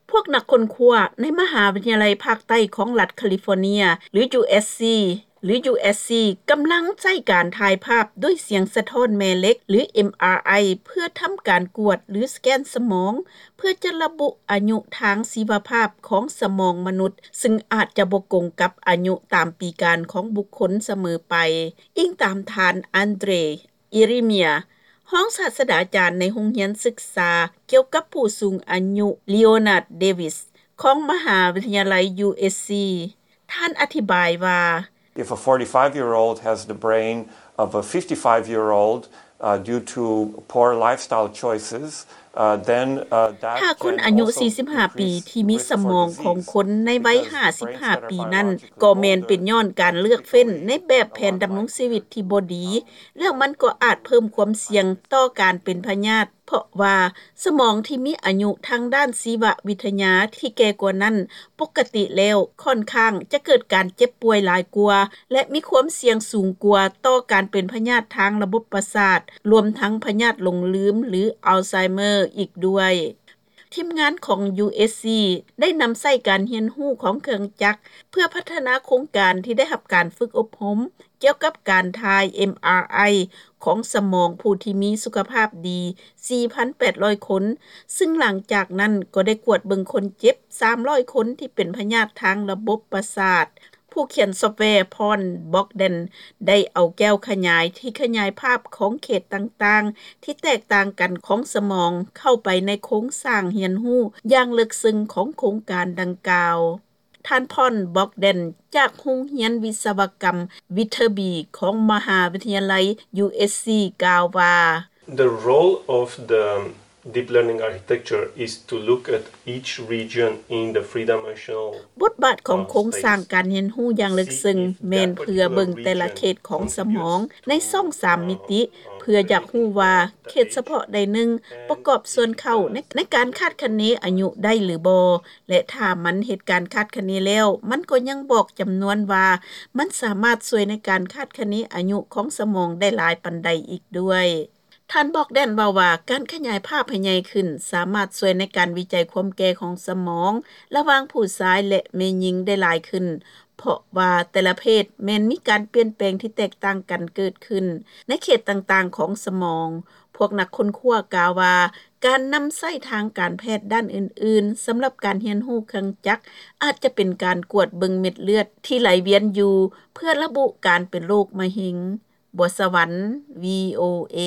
ພວກນັກຄົ້ນຄວ້າໃນມະຫາວິທະຍາໄລພາກໃຕ້ຂອງລັດຄາລິຟໍເນຍ ຫຼື USC ຫຼື USC ກຳລັງໃຊ້ການຖ່າຍພາບດ້ວຍສຽງສະທ້ອນແມ່ເຫຼັກ ຫຼື MRI ເພື່ອທຳການກວດ ຫຼື ສະແກນສະໝອງ ເພື່ອຈະລະບຸອາຍຸທາງຊີວະພາບຂອງສະໝອງມະນຸດ ຊຶ່ງອາດຈະບໍ່ກົງກັບອາຍຸຕາມປີການຂອງບຸກຄົນສະເໝີໄປ, ອີງຕາມທ່ານ André Ieremia, ຮອງສາດສະດາຈານໃນໂຮງຮຽນສຶກສາກ່ຽວກັບຜູ້ສູງອາຍຸ Leonard Davis ຂອງມະຫາວິທະຍາໄລ USC. ທ່ານອະທິບາຍວ່າ: If a forty-five-year-old has the brain of a fifty-five-year-old, uh, due to poor lifestyle choices, uh, then, uh, that ຖ້າຄົນອາຍຸສີ່ສິບຫ້າປີທີ່ມີສະໝອງຂອງຄົນໃນໄວຫ້າສິບຫ້າປີນັ້ນ ກໍແມ່ນເປັນຍ້ອນການເລືອກເຟ້ນໃນແບບແຜນດຳລົງຊີວິດທີ່ບໍ່ດີ ແລ້ວມັນກໍອາດເພີ່ມຄວາມສ່ຽງຕໍ່ການເປັນພະຍາດ ເພາະວ່າສະໝອງທີ່ມີອາຍຸທາງດ້ານຊີວະວິທະຍາທີ່ແກ່ກວ່ານັ້ນ ປົກກະຕິແລ້ວຂ້ອນຂ້າງຈະເກີດການເຈັບປ່ວຍຫຼາຍກວ່າ ແລະ ມີຄວາມສ່ຽງສູງກວ່າຕໍ່ການເປັນພະຍາດທາງລະບົບປະສາດ ລວມທັງພະຍາດຫຼົງລືມ ຫຼື Alzheimer ອີກດ້ວຍ. ທີມງານຂອງ USC ໄດ້ນຳໃຊ້ການຮຽນຮູ້ຂອງເຄື່ອງຈັກ ເພື່ອພັດທະນາໂຄງການທີ່ໄດ້ຮັບການຝຶກອົບຮົມ ກ່ຽວກັບການຖ່າຍ MRI ຂອງສະໝອງຜູ້ທີ່ມີສຸຂະພາບດີ ສີ່ພັນແປດຮ້ອຍຄົນ, ຊຶ່ງຫຼັງຈາກນັ້ນກໍໄດ້ກວດເບິ່ງຄົນເຈັບ ສາມຮ້ອຍຄົນທີ່ເປັນພະຍາດທາງລະບົບປະສາດ. ຜູ້ຂຽນຊອບແວ Paul Bogdan ໄດ້ເອົາແກ້ວຂະຫຍາຍທີ່ຂະຫຍາຍພາບຂອງເຂດຕ່າງໆທີ່ແຕກຕ່າງກັນຂອງສະໝອງ ເຂົ້າໄປໃນໂຄງສ້າງຮຽນຮູ້ຢ່າງເລິກເຊິ່ງຂອງໂຄງການດັ່ງກ່າວ. ທ່ານ Paul Bogdan ຈາກໂຮງຮຽນວິສະວະກຳ Viterbi ຂອງມະຫາວິທະຍາໄລ USC ກ່າວວ່າ: The role of the deep learning architecture is to look at each region in the three-dimensional ບົດບາດຂອງໂຄງສ້າງການຮຽນຮູ້ຢ່າງເລິກເຊິ່ງ ແມ່ນເພື່ອເບິ່ງແຕ່ລະເຂດຂອງສະໝອງໃນຊ່ອງສາມມິຕິ ເພື່ອຢາກຮູ້ວ່າເຂດສະເພາະໃດໜຶ່ງປະກອບສ່ວນເຂົ້າໃນ ໃນການຄາດຄະເນອາຍຸໄດ້ຫຼືບໍ່ ແລະ ຖ້າມັນເຮັດການຄາດຄະເນແລ້ວ ມັນກໍຍັງບອກຈຳນວນວ່າມັນສາມາດຊ່ວຍໃນການຄາດຄະເນອາຍຸຂອງສະໝອງໄດ້ຫຼາຍປານໃດອີກດ້ວຍ. ທ່ານ Bogdan ເວົ້າວ່າ ການຂະຫຍາຍພາບໃຫ້ໃຫຍ່ຂຶ້ນ ສາມາດຊ່ວຍໃນການວິໄຈຄວາມແກ່ຂອງສະໝອງ ລະຫວ່າງຜູ້ຊາຍ ແລະ ແມ່ຍິງໄດ້ຫຼາຍຂຶ້ນ ເພາະວ່າແຕ່ລະເພດແມ່ນມີການປ່ຽນແປງທີ່ແຕກຕ່າງກັນເກີດຂຶ້ນໃນເຂດຕ່າງໆຂອງສະໝອງ. ພວກນັກຄົ້ນຄວ້າກ່າວວ່າ ການນຳໃຊ້ທາງການແພດດ້ານອື່ນໆ ສຳລັບການຮຽນຮູ້ເຄື່ອງຈັກ ອາດຈະເປັນການກວດເບິ່ງເມັດເລືອດທີ່ໄຫຼວຽນຢູ່ ເພື່ອລະບຸການເປັນໂລກມະເຮັງ. ບົວສະຫວັນ VOA.